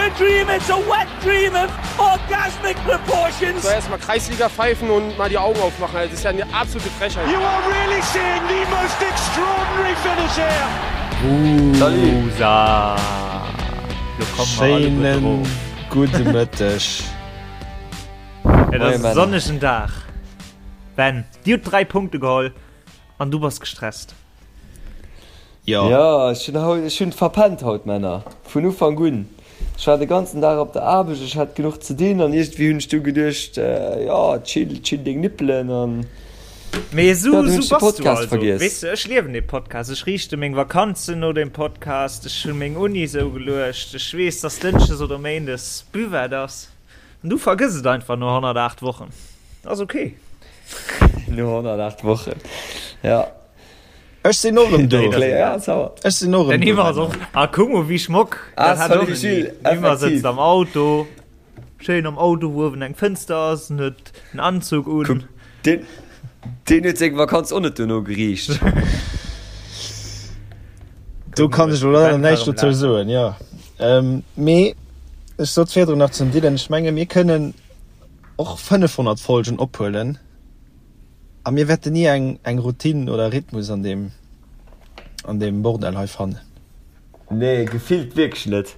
a dream, it's a wet dream of orgasmic proportions. So erstmal Kreisliga pfeifen und mal die Augen aufmachen. Das ist ja eine absolute Frechheit. You are really seeing the most extraordinary finish here. Wusa! Lo kommen mer alleguer Schéinen drop. gudde Mëtteg. Et Moie ass e Männer. sonnegen Dag. Ben, dir hutt 3 Punkte geholl an du bass gestresst. Jo. Jo, ech hunn haut, ech hunn verpennt haut, Männer. Vun Ufank un. Ech war de ganzen Dag op der Aarbecht, ech hat genuch ze dinn an iergendwéi hunn ech du geduecht, jo, chill, chill deng Nippelen an Mee jo, esou, du hunn esou ech de bass du Podcast also. vergiess. Weess de, ech liewen dee Podcast. Ech riichte meng Vakanzen no dem Podcast. Ech hunn meng Uni esou geluecht. Ech weess, dass Dënschdes oder Méindes Buvette ass. An du vergëss et einfach no 108 Wochen. Ass ok. No 108 Wochen, jo. Ech sinn och erëm do. Ech sinn och erëm Den do. Yves ass och. Ah, kuck mol wéi schmock. Ah, Dat hat och salut nach ni. Gilles, Den Yves effektiv. sëtzt am Auto, schéin am Auto, wou uewen eng Fënster ass, en huet en Anzug un. Kuck, deen, deen huet seng Vakanz och net dono geriicht. Do kann ech elo leider näischt dozou soen, jo. Mee ech sot virdrun nach zum Dylan, ech menge mir kënnen och 500 Folgen ophuelen. A mir wäerten ni eng eng Routine oder Rhythmus an deem an deem Bordell hei fannen. Nee, gefillt wierklech net.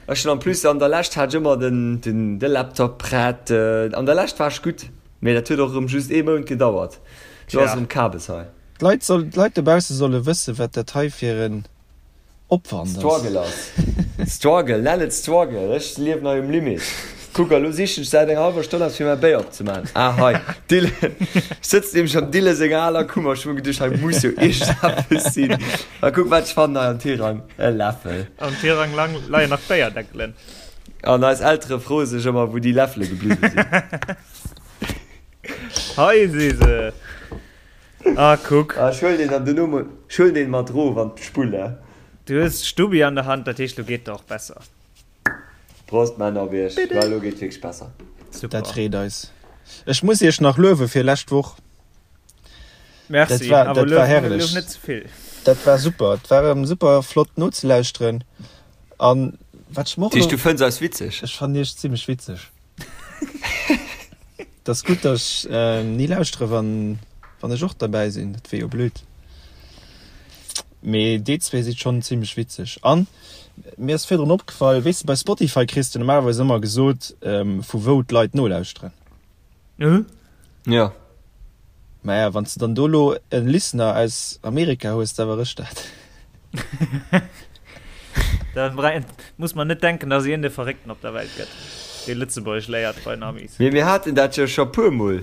Ech hunn en plus an der Lescht hat ech ëmmer den den de Laptop prett. An der Lescht war ech gutt, mee dat huet och erëm just ee Mount gedauert. Lo ass erëm Kabes hei. D'Leit soll d'Leit dobausse solle wësse wat dat hei fir en Opwand ass. Struggle ass. Struggle, nenn et Struggle. Ech liewen hei um Limit. Kuck, a lo sichen ech säit enger hallwer Stonn eppes fir mäi Béier opzemaachen. Ah, hei, Dylan. Ech sëtzen nämlech am Dylan senger aler Kummer. Ech hu mer geduecht, hei muss jo iergendeppes sinn. A kuck, wat ech fannen hei am Tirang, e Läffel. Am Tirang lang leien nach Béierdeckelen. An eis Eltere froe sech ëmmer, wou déi Läffele gebliwwe sinn. Hei si se. Ah, kuck. Ah, ech huelen deen dann duerno mol, ech huelen deen mat rof an d'Spull, eh. Du hues d'Stubbi an der Hand, dat heescht, lo geet et och besser. Prost, Männer, op iech. Well elo geet et wierklech besser. Super. Dat freet eis. Ech muss iech nach luewe fir lescht Woch. Merci, Dat war, awer dat war luef, luef herrlech. net ze vill. Dat war super. Et war erëm super flott nozelauschteren. An wat ech mer och Dat heescht, elo. du fënns eis witzeg? Ech fannen iech zimmlech witzeg. Et ass gutt, datt ech ni lauschtere wann wann ech och derbäi sinn, dat wier jo blöd. Mee déi zwee si schonn zimmlech witzeg. An mir ass virdrun opgefall, weess de bei Spotify kriss de normalerweis ëmmer gesot, vu wou d'Leit nolauschteren. Jo. Maja, wann s de dann do lo e Listener aus Amerika hues, da war ech dat. Da muss man net denken, dass een de Verréckten op der Welt gëtt, dee Lëtzebuergesch léiert bei den Amis. Mee mir haten dat jo scho puer mol.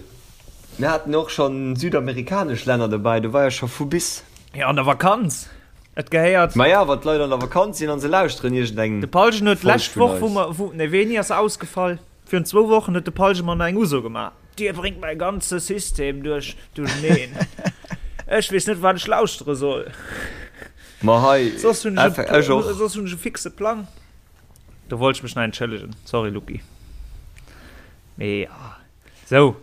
Mir haten och schonn südamerikanesch Länner dobäi, do war jo scho vu bis. Jo, an der Vakanz. Et gehéiert. Maja, wann d'Leit an der Vakanz sinn an se lauschteren iergendeng De Palgen huet Folg d'lescht vun Woch, wou eis. mer, wou, nee, wéini ass e ausgefall? Virun zwou Wochen huet de Palgen mer nach eng Uso gemaach. Dir bréngt mäi ganze System duerch duercheneen. Ech weess net, wat ech lauschtere soll. Ma hei, Soss hunn ech ech och. Soss hunn ech e fixe Plang. Do wollt ech mech nach entschëllegen. Sorry, Lucky. Mee ja. Sou.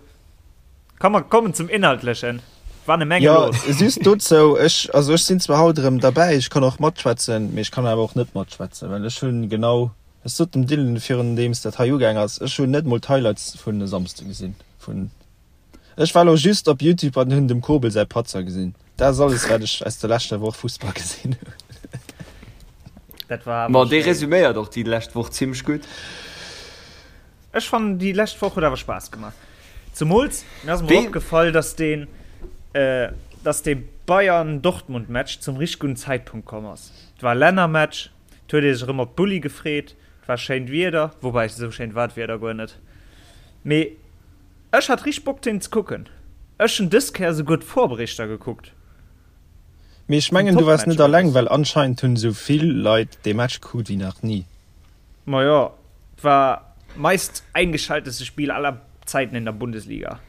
Komm, mer kommen zum Inhaltlechen. War ne Menge Jo, los. just dozou, ech, also ech sinn zwar haut erëm derbäi, ech kann och matschwätzen, mee ech kann awer och net matschwätzen, well ech hunn genau, ech sot dem Dylan virun deems dat hei ugaang ass, ech hunn net mol d'Highlights vun e Samsde gesinn, vun Ech war lo just op Youtube an hunn dem Kobel säi Patzer gesinn. Dat ass alles wat ech aus der leschter Woch Fussball gesinn hunn. Dat war awer Ma dee schéin. resüméiert och déi lescht Woch zimmlech gutt. Ech fannen déi lescht Woch huet awer Spaass gemaach. Zemools mir ass emol Wee. opgefall, dass deen dass dee Bayern-Dortmund Match zum richteg gudden Zäitpunkt komm ass. Et war Lännermatch, et huet ee sech erëm op d'Bulli gefreet, et war schéint Wieder, woubäi esou schéint war d'Wieder guer net, mee Ech hat richteg Bock deen ze kucken. Ech hun dës Kéier souguer d'Vorberichter gekuckt. Mee ech Vum mengen du waars Topmatch net alleng, alles. well anscheinend hunn esou vill Leit dee Match gekuckt wéi nach ni. Majo, et war meist eingeschalteste Spiel aller Zeiten in der Bundesliga.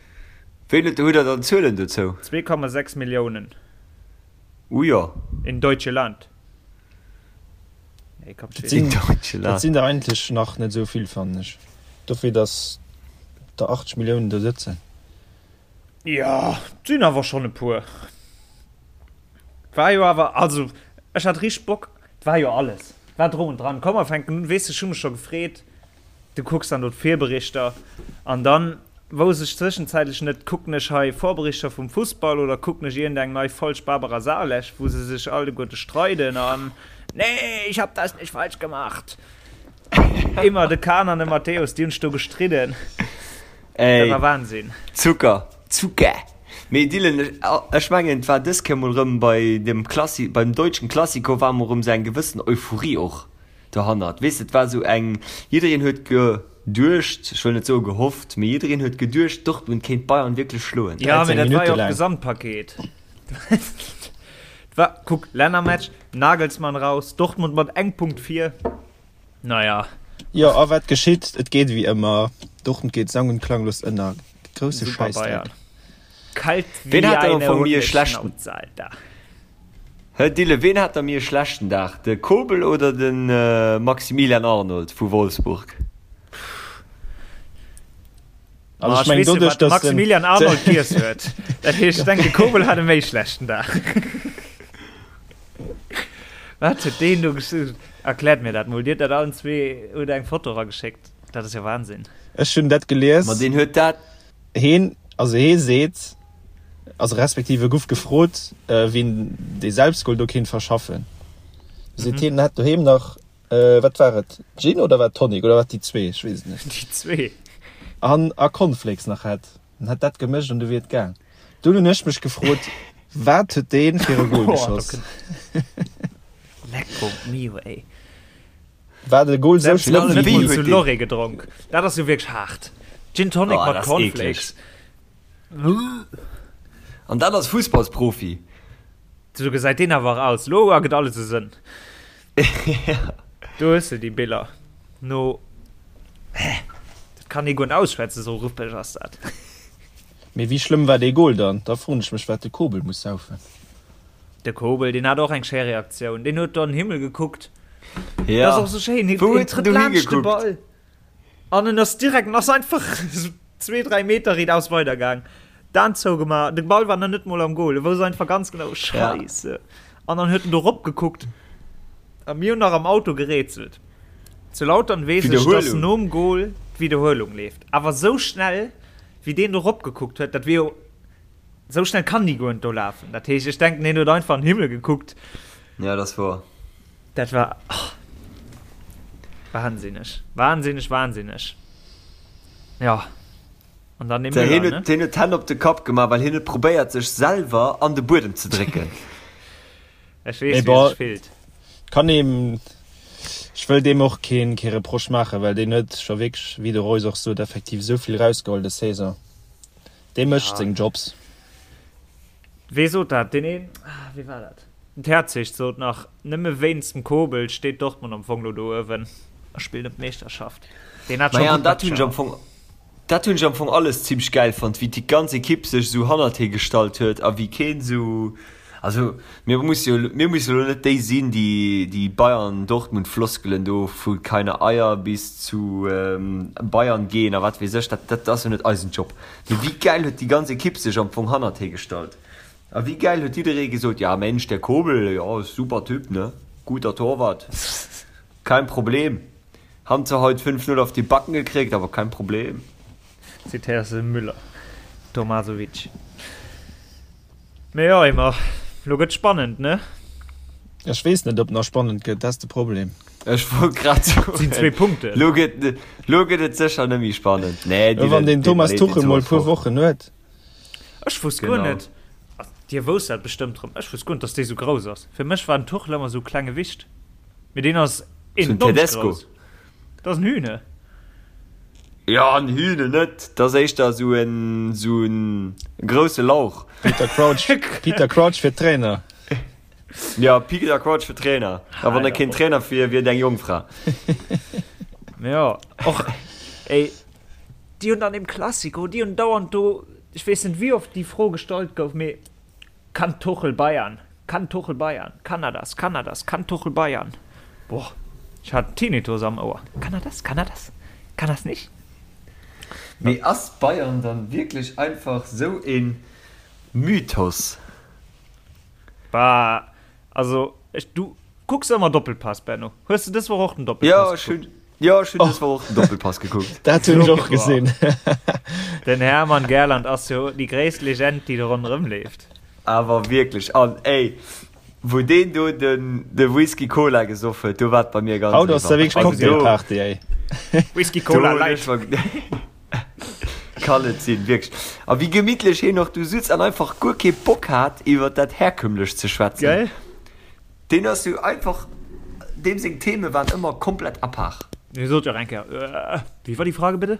Wéi hutt der dann Zuelen dozou? 2,6 Milliounen. Uh jo. In deutsche Land. Nee, komm, Dat sinn, Deutschland. dat sinn der eigentlech nach net esou vill, fannen ech. Dofir, datt der 80 Milliounen do sëtzen. Ja, et sinn awer schonn e puer. War jo awer, also ech hat richteg Bock, et war jo alles. War drum und dran. Komm mer fänken un. Weess de, ech hu mech scho gefreet. Du kucks dann do d'Virberichter an dann wousst ech zwëschenzäitlech net, kucken ech hei Vorberichter vum Fussball oder kucken ech iergendeng nei Folg Barbara Salesch, wou se sech alleguerte streiden an Nee, ich hab das nicht falsch gemacht. Immer de Kahn an de Matthäus, déi hunn sech do gestridden. Dat war Wahnsinn. Zucker, Zucker. Mee Dylan, ech mengen et war dës Kéier mol rëm bei dem Klassi, beim deutschen Klassiko war mol rëm sou eng gewëssen Euphorie och dohannert. Weess de, et war sou eng, jiddereen huet geduecht, ech wëll net soe gehofft, mee jiddereen huet geduecht, Dortmund kéint Bayern wierklech schloen. Jo, mee dat war jo och d'Gesamtpaket. Et war, kuck, Lännermatch, Nagelsmann raus, Dortmund mat engem Punkt vir. Naja. Jo, a wat geschitt? Et geet ewéi ëmmer, Dortmund geet sang und klanglos ënner. Grousse Schäissdreck. Kalt wéi Ween hat dann am eine Fong méi e schlechten Hundeschnauz, Alter. Hä Dylan, ween hat da méi e schlechten Dag, de Kobel oder de Maximilian Arnold vu Wolfsburg? Also Ah, ech mengen weess jo, doduerch, wat de dass den Maximilian Arnold giess huet. Dat heescht, ech denken, de Kobel hat e méi schlechten Dag. Wat huet deen do gesch-, erkläert mir dat mol. Dir hutt dat allen zwee, hutt eng Foto erageschéckt. Dat ass jo Wahnsinn. Ech hunn dat gelies. Ma deen huet dat. Heen, also hee seet, also respektiv e guff gefrot, wien dee Selbstgol do kéint verschaffen. Seet heen, en hätt doheem nach, wat war et, Gin oder war et Tonic oder war et déi zwee, ech weess et net. Déi zwee. An a Cornflakes nach hätt. En hätt dat gemëscht an du wier et gaang. Dunn hunn ech mech gefrot, wat huet dee fir e Gol geschoss? Lecko mio, ey. War de Goal sou schlëmm? Wéi Wéi huet zu deen. Lorry gedronk. Dat ass jo wierklech haart. Gin Tonic Oh, mat dat ass Cornflakes. eekleg. An dat als Fussballsprofi. Sou gesäit deen awer och aus. Lo ergëtt alles e Sënn. Do hues de déi Biller. No. Hä? Dat kann ee guer net ausschwätzen, sou ruppeg ass dat. Mee wéi schlëmm war dee Goal dann? Da froen ech mech, wat de Kobel muss saufen. De Kobel, deen hat och eng schéi Reaktioun. Deen huet do an den Himmel gekuckt. Ja. Dat ass och sou schéin. Hien Wou huet en trëtt dohi laanscht de gekuckt? Ball an en ass direkt, en ass einfach zwee, dräi Meter riitaus weidergaang. D'Aen zougemaach. De Ball war nach net mol am Goal. E wousst einfach ganz genau, Ja. Scheisse. An dann huet en do ropgekuckt. A mir hunn nach am Auto gerätselt. Zu Lautern weess ech, dass D'Wiederhuelung. nom Goal d'Wiederhuelung leeft. Awer sou schnell, wéi deen do ropgekuckt huet, dat wier jo. Sou schnell kann déi guer net do lafen. Dat heescht, ech denken, hien huet einfach an den Himmel gekuckt. Ja, dat ass woer. Dat war oh, wahnsinneg, wahnsinneg, wahnsinneg. Ja. An dann dee Hien Müller, huet, ne? hien huet d'Hänn op de Kapp gemaach, well hien huet probéiert, sech selwer an de Buedem ze drécken. Ech Mee weess, wéi bon, sech fillt. kann eem, ech wëll deem och keen, kee Reproche maachen, well deen huet scho wierklech, wéi de Royce och sot, effektiv esou vill rausgeholl des Saison. Dee mécht seng Jobs. Wee sot dat? Deen een, ah, wee war dat? Den Terzic sot nach, nëmme wéinst dem Kobel steet Dortmund am Fong lo do uewen a spillt ëm d'Meeschterschaft. Deen hat scho Maja, an gutt dat hunn ech Matcher. am Fong, dat hunn ech am Fong alles zimmlech gäil fonnt, wéi déi ganz Ekipp sech esou hannert hie gestallt huet a wéi keen esou, also mir musse jo, mir musse elo net déi sinn, déi déi Bayern-Dortmund-Floskelen do vu keine Eier bis zu Bayern gehen a wat weess ech, dat dat ass jo net eisen Job. Mee wéi gäil huet déi ganz Ekipp sech am Fong hannert hie gestallt a wéi gäil huet jidderee gesot, ja Mensch, der Kobel, jo, super Typ, ne, guter Torwart, kein Problem. Haben zwar haut 5, 0 auf die Backen gekriegt, aber kein Problem. Zitéiers de Müller, Tomasovic. Mee jo, Emma, lo gëtt spannend, ne? Ech weess net, ob nach spannend gëtt, dat ass de Problem. Ech wollt grad soen. Sinn zwee Punkten. Lo gëtt, lo gëtt et sécher net méi spannend. Nee, Dylan, wann den Thomas Tuchel mol e puer Wochen huet. Ech wosst guer net, dir wousst dat bestëmmt rëm, ech wosst guer net, dass dee sou grouss ass. Fir mech war den Tuchel ëmmer sou klenge Wicht, mee deen ass 1,90 grouss. Dat ass en Hühne. Jo, en Hühne net, dat ass éischter sou en, sou en grousse Lauch. Peter Crouch, Peter Crouch fir Trainer. Jo, Peter Crouch fir Trainer. A wann e keen Trainer wier, wier et eng Jongfra. Jo, och, ey, déi hunn an deem Classico, déi hunn dauernd do, ech weess net wéi oft déi Fro gestallt gouf, mee Kann Tuchel Bayern? Kann Tuchel Bayern? Kann er das? Kann er das? Kann Tuchel Bayern? Boah, ech hat Tinnitus am Ouer. Kann er das? Kann er das? Kann er's nicht? Mee ass Bayern dann wierklech einfach sou een Mythos? Bah, also ech, du. Kucks ëmmer Doppelpass, Benno? Hues de dës Woch och den Doppelpass gekuckt? Jo, ech hunn dës Woch och den Doppelpass gekuckt. Dat hunn ech och gesinn. Den Hermann Gerland ass jo déi gréisst Legend, déi do ronderëm leeft. Awer wierklech. An ey, wou deen do den de Whisky Cola gesoff huet, do war et bei mir ganz Haut ass da wierklech Cocktailparty, ey. Whisky Cola Light. Kann et sinn, wierklech. A wéi gemittlech hien och do sutz an einfach guer kee Bock hat, iwwer dat Herkömmlecht ze schwätzen. Gell? Deen ass jo einfach, deem seng Theme waren ëmmer komplett à part. Hie sot jo och eng Kéier, Wie war die Frage bitte?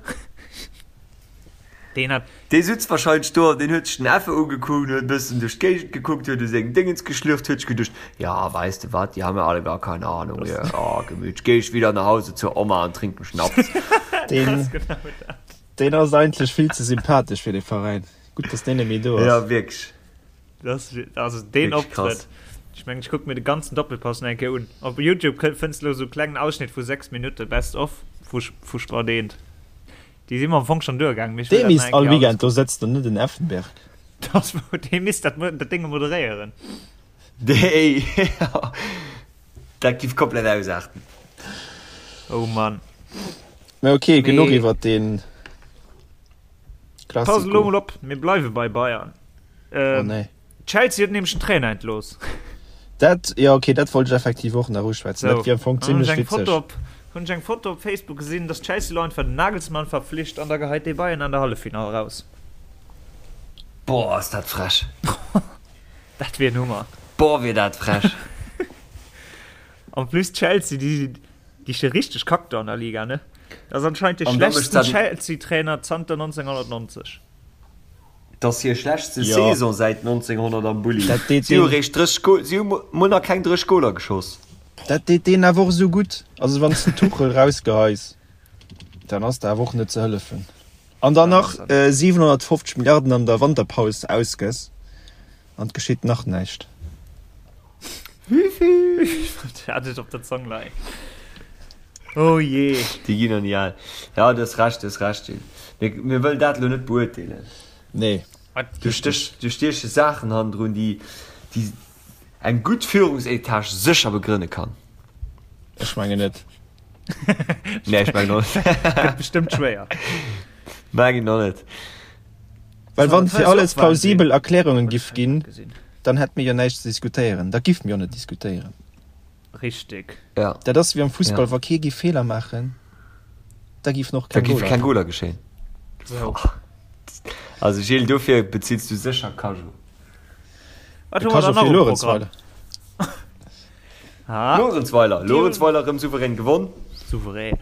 Deen hat. Dee sutz wahrscheinlech do an deen huet sech den Affe ugekuckt, huet e bëssen duerch d'Géigend gekuckt, huet u seng Déngens geschlürft, huet sech geduecht, Ja, weißt du wat, die haben ja alle gar keine Ahnung hier, oh, gemütlich, geh ich wieder nach Hause zur Oma und trink einen Schnaps. Deen, deen ass eigentlech vill ze sympathesch fir de Veräin. Gutt, dass deen net méi do ass. Ja, wierklech. Das, also deen Optrëtt. Ech mengen, ech kucke mir de ganzen Doppelpass nach eng Kéier un. Op Youtube fënns de lo sou klengen Ausschnitt vu 6 Minutte Best of vu, vu Sport 1. Déi si mer am Fong schonn duergaangen, mee ech wëll dat nach eng Kéier alles kucken. Dee misst all Weekend do sëtzen an net den Effenberg. Das wou, dee misst dat, dat Dénge moderéieren. Déi, dat giff komplett ausaarten. Oh Mann. Mä ok, genuch iwwert deen Classico. Pass elo mol op, mir bleiwe bei Bayern. Oh nee. Chelsea huet nämlech den Trainer entlooss. Dat, jo ok, dat wollt ech effektiv och nach uschwätzen. Dat wier am Fong zimlech witzeg. Hunn ech eng Foto op Facebook gesinn, dass Chelsea elo einfach den Nagelsmann verpflicht an da geheit dee Bayern an der Halleffinall raus. Boah, ass dat frech. Dat wier en Hummer. Boah, wier dat frech. En plus Chelsea, déi déi sti richteg kack do an der Liga, ne? Dat ass anscheinend de schlechtsten Chelsea-Trainer zanter 1990. Et ass hir schlechtste Saison säit 1900 am Bulli. Si hu réischt 30 Goal, si hu mol nach keng 30 Goaler geschoss. Dat deet deenen awer och esou gutt. Also wann s de Tuchel rausgeheis, dann ass der awer och net ze hëllefen. An dann nach 750 Milliarden an der Wanterpaus ausgëss an et geschitt nach näischt. Hat ech op der Zong leien. Oh jee. Déi ginn der ni al. Ja, du hues Recht, du hues Recht, Gilles. Mir, mir wëllen dat elo net beurteelen. Nee. Do stech, do stieche Saachen hannendrun, déi, déi eng gutt Führungsetage sécher begrënne kann. Ech mengen net. Nee, ech mengen och net. Gëtt bestëmmt schwéier. Mengen och net. Well wann fir alles plausibel Erklärungen giff ginn, dann hätt mir jo näischt ze diskutéieren. Da giff mir jo net diskutéieren. Richtig. Ja. Dat ass wéi am Fussball, wa kee giff Feeler maachen, da giffen och keng Goler. Da giff keng Goler geschéien. Sou. Also Gilles, dofir bezills du sécher Cajot. Wat hu mer dann nach um Programm? Luerenzweiler. Luerenzweiler erëm souverän gewonn. Souverän.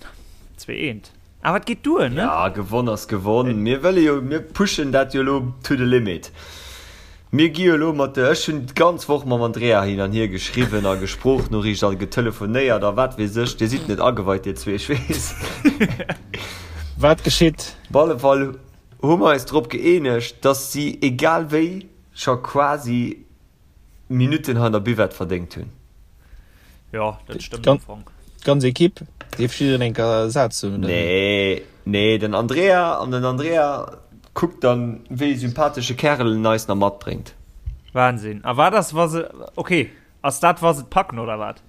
2 eent. Awer et geet duer, ne? Ja, gewonn ass gewonn. Mir wëlle jo, mir pushen dat jo elo to the limit. Mir gi jo elo mat de, ech hunn d'ganz Woch mam Andrea hin an hier geschriwwen a Gesprochnoriicht a getelefonéiert a wat weess ech. Dir sidd net ageweit, dir zwee, ech weess. Wat geschitt? Op alle Fall hu mer eis drop gëeenegt, dass si egal wéi scho quasi Minutten hei an der Buvette verdéngt hunn. Jo, dat stëmmt am Fong. D'ganz Ekipp? Dierf jiddereen eng Kéier Saz soen, oder wéi? Nee, nee, den Andrea an den Andrea kuckt dann, wéi ee sympathesche Kärel en eis nach matbréngt. Wahnsinn. A wat ass, wa se, okay, ass dat, wa se et packen, oder wat?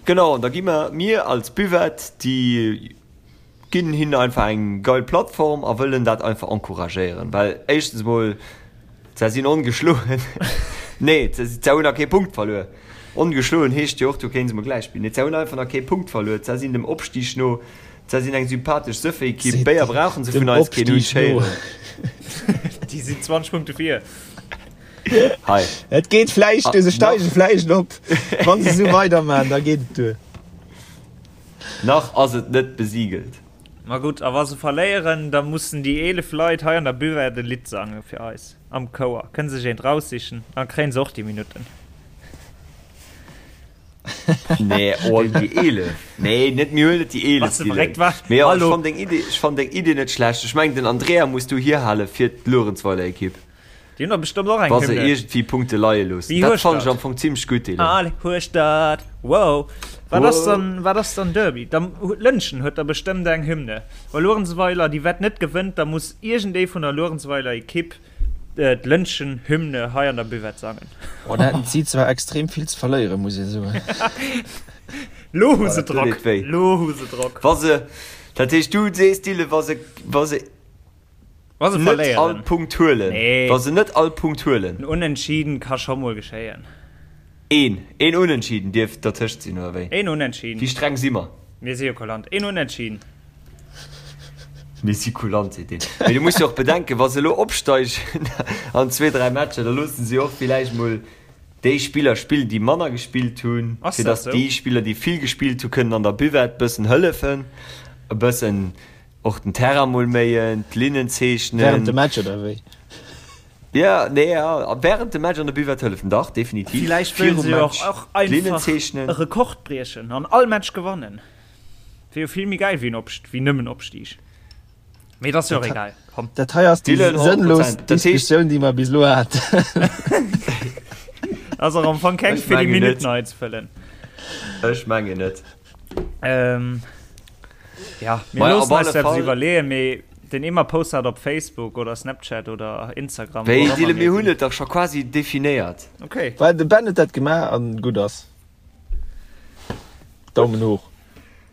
Genau, an da gi mer, mir als Buvette, déi ginn hinnen einfach eng geil Plattform a wëllen dat einfach encouragéieren, well éischtens emol, se sinn ongeschloen, nee, se hunn nach kee Punkt verluer, ongeschloen heescht jo och, du kéints emol gläich spillen, nee, se hunn einfach nach kee Punkt verluer, se sinn dem Opstig no, se sinn eng sympathesch Sëffekipp, Béier brauchen se vun eis keen, hunn ech héieren. Déi sinn 20 Punkte vir. Hei. Et geet vläicht duer, se steige vläicht op, wa se esou weidermachen, da geet et duer. Nach ass et net besigelt. Ma gutt, a wa se verléieren, da mussen déi 11 Leit hei an der Buvette e Lidd sange fir eis am Chouer. Kënne sech eent raussichen, da kréien se och déi Minutten. Nee, oh, déi 11? Nee, net, mir huelen net déi 11, Bass de verréckt, Dylan. wat? Mee jo, ech Hallo? fann deng Idee, ech fann deng Idee net schlecht. Ech mengen, den Andrea muss du hierhale fir d'Luerenzweiler-Ekipp. Déi hunn der bestëmmt och eng Wa se Hymne. iergendwéi Punkte leie loossen. Wéi Dat huescht fannen ech dat? am Fong zimmlech gutt, Dylan. Allez Hueschtert, wow! Wat ass Wow. dann, wat ass dann Derby? Da, Lëntgen huet der bestëmmt eng Hymne. Wa Luerenzweiler déi Wett net gewënnt, da muss iergendee vun der Luerenzweiler Ekipp. D'Lëntgen Hymne hei an der Buvette sangen. Oh, da hätten si zwar extrem vill ze verléieren, muss ee soen. Lo hu se Drock, lo hu se Drock. Wa se, dat heescht du sees Dylan, wa se, wa se Wa se net all verléieren. Punkt huelen, Nee. wa se net all Punkt huelen. En Unentschieden ka scho mol geschéien. Een, een Unentschieden dierf dertëscht sinn, oder wéi? Een Unentschieden. Wéi streng si mer? Mir si jo kulant. Een Unentschieden. Mir si kulant, seet deen. Mee du muss jo och bedenken, wa se elo opsteigen an zwee, dräi Matcher, da loosse se jo och villäicht mol déi Spiller spillen, déi manner gespillt hunn, Ass fir dat datt sou? déi Spiller, déi vill gespillt hunn, kënnen an der Buvette bëssen hëllefen, e bëssen och den Terrain mol méien, d'Linnen zeechnen. Während dem Match, oder wéi? Ja, nee, ja, während dem Match an der Buvette hëllefen, dach, definitiv. Villäicht wëllen Virum se jo Match och d'Linnen einfach zeechnen. e Rekord briechen an all Match gewannen. Wier jo vill méi gäil wéi en Opst wéi nëmmen Opstig. Mee et ass jo och egal. Komm. Dat hei ass déi Dylan, 100%. sënnlos Dat heescht- Diskussioun, déi mer bis elo haten. Ass och am Fong keng Ech fir déi mengen net. Minutten hei ze fëllen. Ech mengen net. Ähm, ja, mir Maja, loossen op eis alle dat Fall- iwwerleeën, mee den Emma post dat op Facebook oder Snapchat oder Instagram. Wéi, wo auch immer Dylan, mir mir hunn sinn. et dach scho quasi definéiert. Okay. Well de Ben huet dat gemaach an gutt ass. Daumen hoch.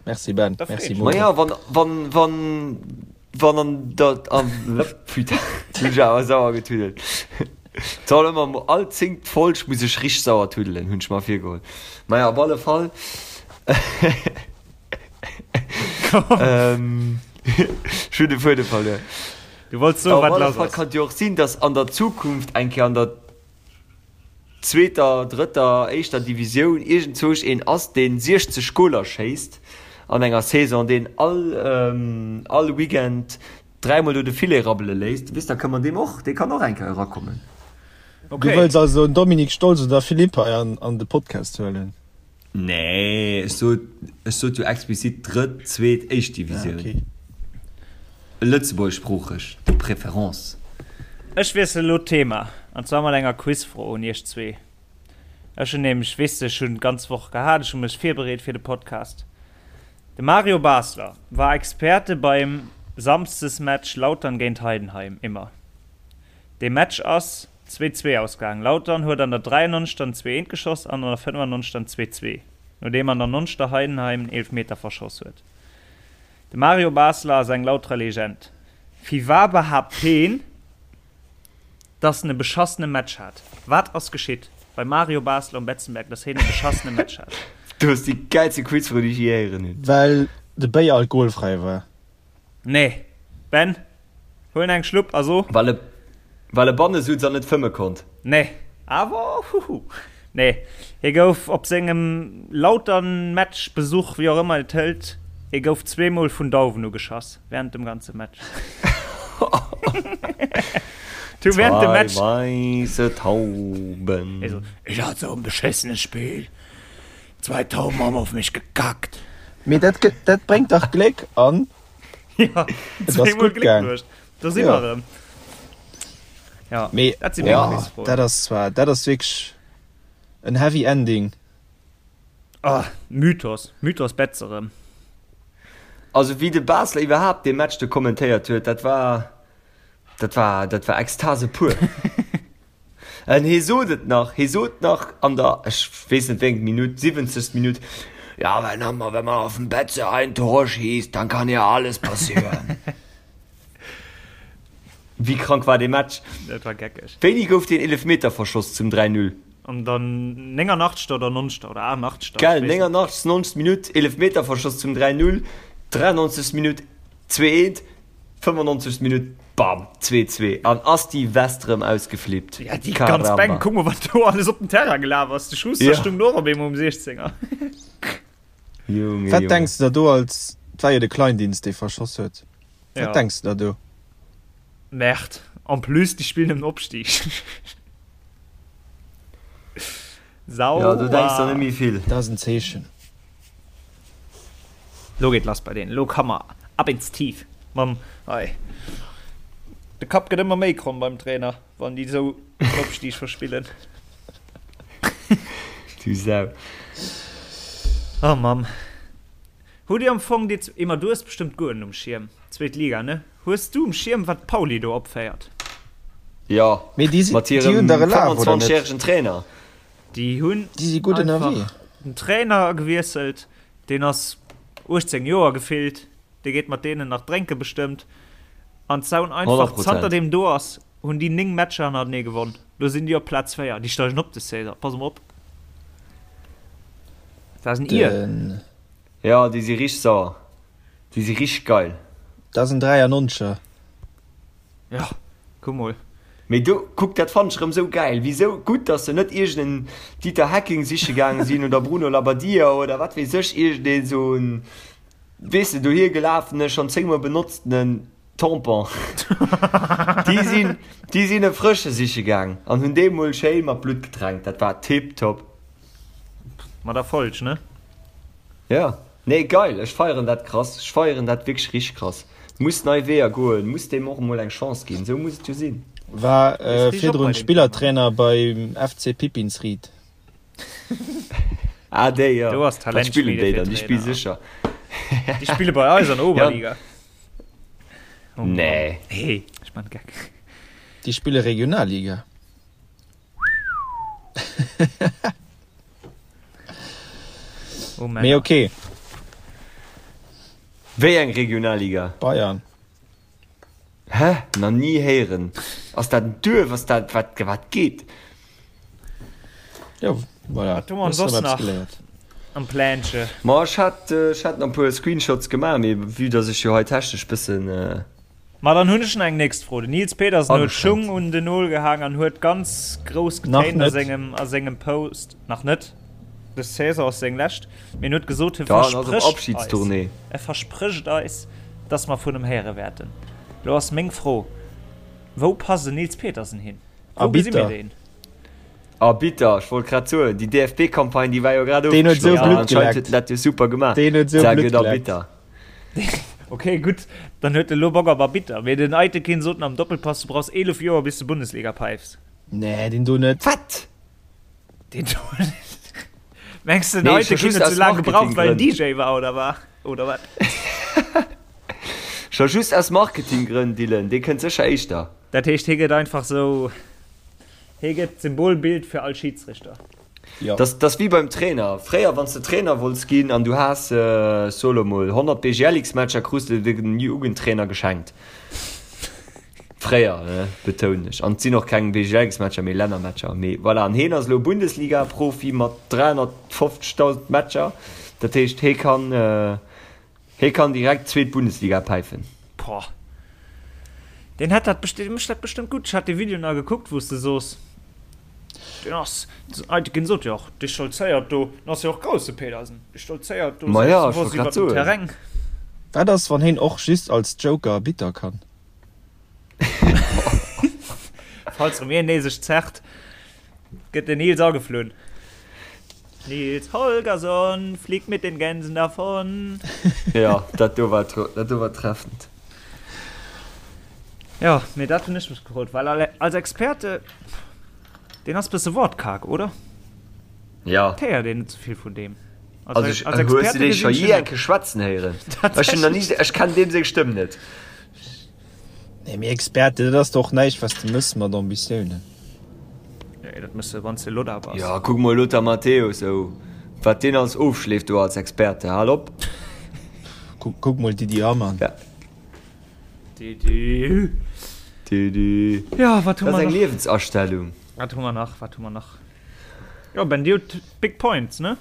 Merci Ben, Da merci freet Momo. Maja, wann, wann, wann, wann an der, an, putain, hunn ech awer sauer getuddelt. Soll ëmmer mo, all zéngt Folg muss ech richteg sauer tuddelen, hunn ech mer virgeholl. Maja, op alle Fall, ähm, ech hunn de Fuedem verluer. Du wollts soen, Op wat alle lass Fall ass. kann et jo och sinn, dass an der Zukunft eng Kéier an der zweeter, drëtter, éischter Divisioun iergendzwousch een ass, deen 60 Goler schéisst an enger Saison, deen all, all Weekend dräimol do de Filet rabbele léisst, weess, da kënne mer deem och, dee kann och eng Kéier erakommen. Du Okay. wëlls also en Dominique Stolz oder Philippe hei an, an de Podcast huelen? Nee, ech sot, ech sot jo explizit drëtt, zweet, éischt Ah, Divisioun. okay. Lëtzebuergeschsproocheg de préférence. Ech wiesselen elo d'Thema, an zwar mat enger Quizfro un iech zwee. Ech hunn nämlech, weess de, ech hunn d'ganz Woch gehat, ech hu mech virbereet fir de Podcast. De Mario Basler war Experte beim Samsdesmatch Lautern géint Heidenheim, immer. Dee Match ass 2, 2 ausgaangen. Lautern huet an der 93. en 2, 1 geschoss an an der 95. en 2, 2, nodeem an der 90. Heidenheim en Eelefmeter verschoss huet. De Mario Basler ass eng Lauterer Legend. Firwar behaapt heen, dass en e beschassene Match hat? Wat ass geschitt beim Mario Basler um Betzenberg, dass heen e beschassene Match hat? Du hues déi gäilste Quizfro, déi ech je héieren hunn. Well de Béier alkoholfräi war. Nee. Ben, huel eng Schlupp a so. Well e, well e banne sutz an net fëmme konnt. Nee. Awer, huhu. Nee. Hie gouf op sengem Lautern-Match, Besuch, wéi och ëmmer et hëlt, hie gouf zweemol vun Dauwen ugeschass während dem ganze Match. Du während dem Match. Zwei weisse Tauben. Hie so, Ich hat so en beschissene Spiel. Zwei Tauben haben auf mich gekackt. Mee dat gëtt, dat bréngt dach Gléck an Ja, et ass zweemol gutt Gléck gaang. bruecht. Do si Ja. mer erëm. Ja, Mee dat si meng ja, Quizfroen. dat ass zwar, dat ass wierklech en heavy ending. Ah, Mythos, Mythos Betz erëm. Also wéi de Basler iwwerhaapt dee Match do kommentéiert huet, dat war, dat war, dat war Ekstase pur. En hie sot et nach, hie sot nach an der, ech weess net wéi eng Minutt, 70. Minutt, Ja, wenn man, wenn man auf dem Betze ein Tor schießt, dann kann ja alles passieren. Wéi krank war dee Match? Dat war geckeg. Wéini gouf deen Eelefmeter verschoss zum 3, 0? An der 89. oder 90. oder 88. Gell, 89., 90. Minutt, Eelefmeter verschoss zum 3, 0, 93. Minutt, 2, 1. 95. Minutt, bam, 2, 2 an ass déi West rëm ausgeflippt. Ja, déi ganz Bänk, kuck mol wat do alles op den Terrain gelaf ass. De Schuster ja. stung do och op eemol um 16er. Junge, Wat Junge. denks de der do als, et war jo de Kleindienst dee verschoss huet, wat Ja. denks de der do? Merde, en plus déi spillen ëm den Opstig. Sauer. Ja, do denks der net méi vill. Dat ass en Zeechen. Lo geet lass bei deenen. Lo ka mer ab ins Tief mam hei. De Kapp gëtt ëmmer méi kromm beim Trainer, wann déi esou den Opstieg verspillen. Du Sau. Oh Mamm. Hutt dir am Fong déi, Emma du hues bestëmmt guer net um Schierm, zweet Liga ne? Hues du um Schierm wat d'Pauli do opféiert? Jo, Mee déi si, mat déi hirem hunn der elaf, oder 25 net? järegen Trainer. Déi hunn Déi si gutt ënnerwee. einfach den Trainer gewiesselt, deen ass 18 Joer gefillt, dee geet mat deenen nach drénke bestëmmt. An d'Saun einfach, 100%. zanter deem do ass, hunn déi 9 Matcher hannertenee gewonn. Lo sinn déi op Plaz 4, déi steigen op de Saison, pass mol op. Dat ass en Ier. Den, Jo, déi si richteg sauer. Déi si richteg geil. dat ass en 93er. Ja, kuck mol. Mee do, kuck, dat fannen ech erëm sou gäil. Wisou gutt, dass se net iergend en Dieter Hecking siche gaange sinn oder Bruno Labbadia oder wat weess ech, iergend een sou en, weess de, dohier gelafene, schonn zéngmol benotztenen Tampon. Déi sinn, déi sinn e frësche siche gaang an hunn dee mol schéi mat Blutt getränkt. Dat war tiptop. Mat Erfolg, ne? Ja. Nee geil, ech feieren dat krass, ech feieren dat wierklech richteg krass. Muss nei Weeër goen, muss deem och emol eng Chance ginn, esou muss et jo sinn. War Ist richteg op virdrun bei dem Thema. Spillertrainer beim FC Pipinsried. Ah déi jo, Do ass wat spillen Talentschmiede déi fir dann? Déi spille Trainer. sécher. Déi spille bei eis an der Ja, Oberliga. Oh Mann. nee. Nee, ech man Geck. Déi spille Regionalliga. Oh, Mee ok. Wéi eng Regionalliga? Bayern. Hä? Nach ni héieren. Ass dat en Duerf? Ass dat, wat, wat geet? Jo, voilà. Wat hu mer soss nach am Plänche? Ma ech hat, ech hat nach e puer Screenshots gemaach, mee vue dass ech jo hei technesch bëssen. Ma dann hunn ech nach eng nächst Fro. Den Nils Petersen huet Ageschränkt. Schung un den Nol gehaang an huet ganz grouss Nach getéint a net. sengem a sengem Post, nach net, dës Saison ass seng lescht, mee en huet gesot, hie Ja, en ass op versprécht eis, Abschiedstournée. e versprécht eis, dass mer vun em héiere wäerten. Lo ass meng Fro, Wou passt en Nils Petersen hin? Wou gesi mir Arbitter. deen? Arbitter, ech wollt grad soen, déi DFB-Campagne, déi war jo grad Deen huet esou ofgeschloss an Blutt anscheinend huet geleckt. en dat jo super gemaach. Deen huet esou Sehr Blutt gutt geleckt. Arbitter. Ok gutt, dann huet e lo Bock op Arbitter. Mee den Aytekin sot am Doppelpass, du brauchs 11 Joer bis de Bundesliga peifs. Nee, deen do net. Wat? Deen do net. Mengs de den Nee, scho Aytekin just huet aus sou laang gebraucht well en Marketinggrënn. DJ war oder war oder wat? Scho just aus Marketinggrënn, Dylan, dee kënnt sécher éischter. Dat heescht hie gëtt einfach sou, hie gëtt d'Symbolbild fir all Schidsrichter. Jo. Dat ass wéi beim Trainer. Fréier, wann s de Trainer wollts ginn an du has, so elo mol, 100 BGLX-Matcher, krus de den Jugendtrainer geschenkt. Fréier, ne, betounen ech. An et sinn och keng BGLX-Matcher, mee Lännermatcher. Mee voilà, an heen ass elo Bundesliga-Profi mat 350.000 Matcher. Dat heescht, hee kann, Hee kann direkt zweet Bundesliga päifen. Boah. Deen hätt dat besti mécht dat bestëmmt gutt. Ech hat dee Video nach gekuckt, wou s de soos, deen ass, Aytekin sot jo och, dee stolzéiert do, den ass jo och grouss, de Pedersen, dee stolzéiert do Ma ja, ech selbstbewosst wollt grad iwwert den soen. Terrain. Wat ass, wann heen och just als Joker Bitter kann? Falls erëm een nee sech zerrt, gëtt den Nils ageflunn. Nils Holgersson fliegt mit den Gänsen davon. Ja, dat do war, dat do war treffend. Ja, mee dat hunn ech mech gefrot, well als Experte, deen ass bësse wortkarg, oder? Ja. Et héiert een net sou vill vun deem. Also ech, als Experte hues du dee scho jee eng Kéier schwätzen héieren? Ech hunn nach ni, ech kennen deem seng Stëmm net. Nee, mee Experte, dat ass doch näischt, wat s de mëss mat Ambitiounen. Nee, dat mëss de, wann s de Lothar bass. Jo, kuck mol Lothar Matthäus, oh, wat deen alles ofschleeft do als Experte, hal op. Kuck, kuck mol Didi Hamann. Ja. Didi. Didi. Ja, wat hu Dat mer ass eng nach? Liewensastellung. Wat hu mer nach, wat hu mer nach? Jo, Ben, dir hutt Big Points, ne?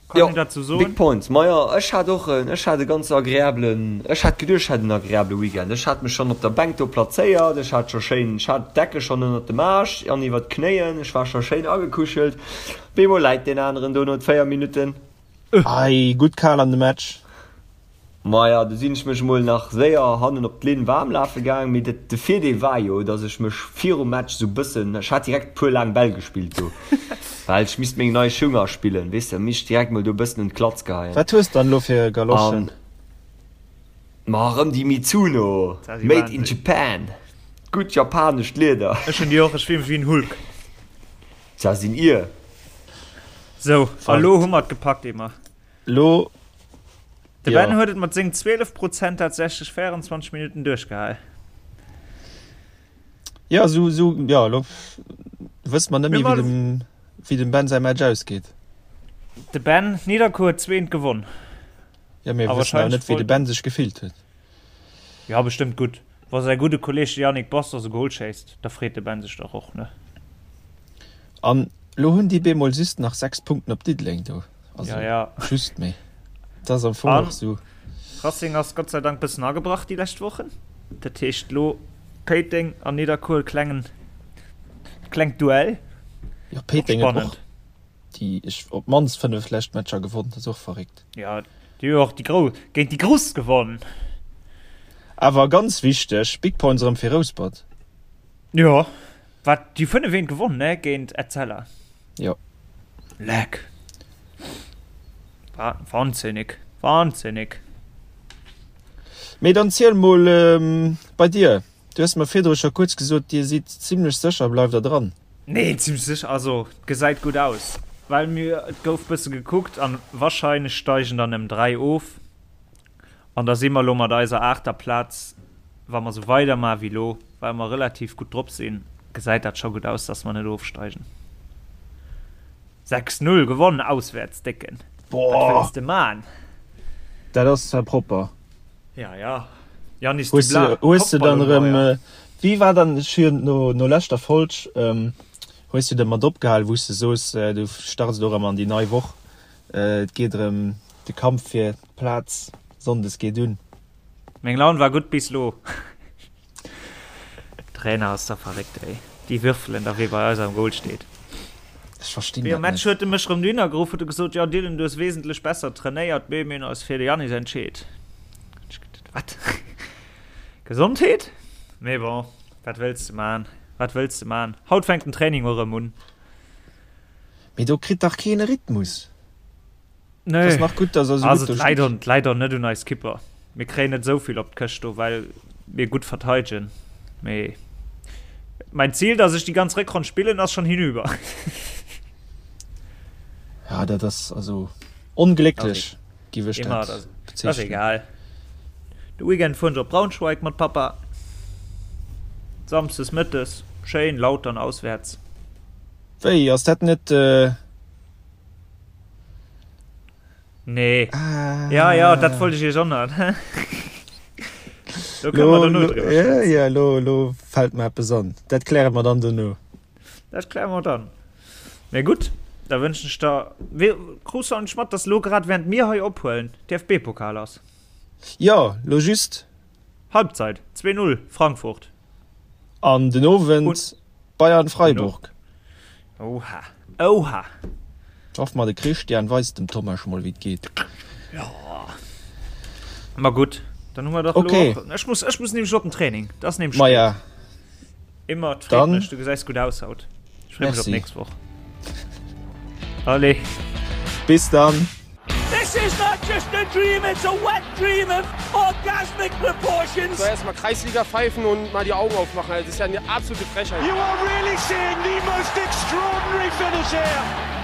Kann Jo, een dat sou soen? Big Points. Majo, ech hat och en, ech hat e ganz agreablen, ech hat geduecht, ech hätt en agreabele Weekend. Ech hat mech schonn op der Bänk do plazéiert, ech hat scho schéin, ech hat d'Decke schonn ënnert dem Aarsch an iwwert d'Knéien, ech war scho schéin agekuschelt. Op eemol läit deen aneren do no 4 Minutten. Ei, gutt kal an de Match. Maja, du sinn ech mech mol nach séier hannen op d'Linn waarm lafe gaang, mee dat, de Virdeel war jo, dass ech mech virum Match sou bëssen, ech hat direkt puer laang Bäll gespillt do, well ech misst meng nei Schung aspillen, weess de, misst direkt mol do bëssen un d'Klatz geheien. Wat hues dann elo fir Galoschen? An ma erëm déi Mizuno, Dat ass made in Wahnsinn. Japan, gutt japanescht Lieder. Ech hunn déi och, ech fill mech wéi en Hulk. Dat sinn ier. Sou, a lo hu mer et gepackt, Emma. Lo De Ben huet et mat sengen 12 Prozent tatsächlech 24 Minutten duerchgehal. Jo, sou, sou, jo, elo wësse mer net méi, wéi dem, wéi dem Ben säi Match ausgeet. De Ben, Nidderkuer huet zweent gewonn. Jo, mir wëssen awer net, wéi de Ben sech gefillt huet. Jo, bestëmmt gutt. Wa säi gudde Kolleeg de Yannick Bastos e Gol schéisst, da freet de Ben sech dach och, ne? An elo hunn déi bemol just nach 6 Punkten op Diddeleng do. Also ja, ja. just méi. Dat ass am Fong och sou. Racing ass Gott sei Dank bëssen agebrach déi lescht Wochen. Dat heescht lo Péiteng an Nidderkuer klengen klengt Duell. Jo, Péiteng huet och déi ech op d'mannst 5 lescht Matcher gewonn. Dat ass och verréckt. Ja, déi hu och déi Grouss géint déi Grouss gewonn. Awer ganz wichteg, Big Points erëm fir Rouspert. Jo, wat déi 5 eent gewonn ne géint Etzella. Jo. Leck. Wahnsinnig. Wahnsinnig. Mee dann ziel mol bei dir. Du hues mer virdru scho kuerz gesot, dir sidd zimlech sécher, bleift der dran? Nee, zimlech sécher, also et gesäit gutt aus, well mir, et gouf bësse gekuckt an wahrscheinlech steigen der nëmmen 3 of an da si mer elo mat eiser aachter Plaz, wa mer esou weidermaach wéi elo, well mer relativ gutt drop sinn, gesäit dat scho gutt aus, dass mer net ofsteigen. 6, 0 gewonn auswäerts, Décken. Wat wëlls de man? Dat ass zwar propper. Ja, ja. Janis Hues de, hues de dann erëm, wéi war dann, ech hunn no, no leschter Folg, hues du da mat opgehal, wou s de soos, du starts elo erëm an déi nei Woch, et geet erëm de Kampf fir d'Plaz sonndes geet un. Meng Laun war gutt bis lo. Trainer ass da verréckt ey. Déi würfelen da wee bei eis am Goal steet. Ech verstinn dat Virum Match net. huet e mech rëm dohinner geruff, huet e gesot, jo Dylan du hues wesentlech besser trainéiert, mee mir hunn eis fir de Yanis entscheet. Ech geduet, wat? Gesondheet? Mee bon, wat wëlls de man, wat wëlls de man. Haut fänkt den Training och erëm un. Mee do kritt dach keen e Rhythmus. Nee. Ass nach gutt, dass er sou Also gutt do et läit steet. och, et läit och net un eis Kipper. Mir kréien net esou vill op d'Këscht do, well mir gutt verteidegen. Mee mein Ziel, dass ech déi ganz Réckronn spillen, ass schon hinüber. Ja, dat ass also onglécklech, giff ech Immer, dat dat ass bezeechnen. egal. De Weekend fueren ech op Braunschweig mat Papa. Samsdes mëttes, schéin Lautern auswäerts. Wéi, ass dat net. Nee. Ah. Ja, ja, dat wollt ech iech och nach. Do kënne mer dono driwwer schwätzen. Ja, lo, lo fält mer eppes an. Dat kläre mer dann dono. Dat kläre mer dann. Mee gutt, da wënschen ech der. Wéi, krus du eigentlech mat, dass lo grad während mir hei ophuelen, DFB-Pokal ass? Jo, lo just. Halbzeit, 2, 0, Frankfurt. An den Owend Bayern-Freiburg. Oha, oha. Hoffe mer de Christian weist dem Tomasch mol wéi et geet. Jo. Ma gutt, dann hu mer dach okay. elo och. Ech muss, ech muss nämlech op den Training. Dat ass nämlech Ma ja. Immer, et freet mech, du gesäis gutt aus haut. Ech freeë mech op d'nächst Woch. Allez. Bis dann. This is not just a dream, it's a wet dream of orgasmic proportions. So erstmal Kreisliga pfeifen und mal die Augen aufmachen. Das ist ja eine absolute Frechheit. You are really seeing the most extraordinary finish here.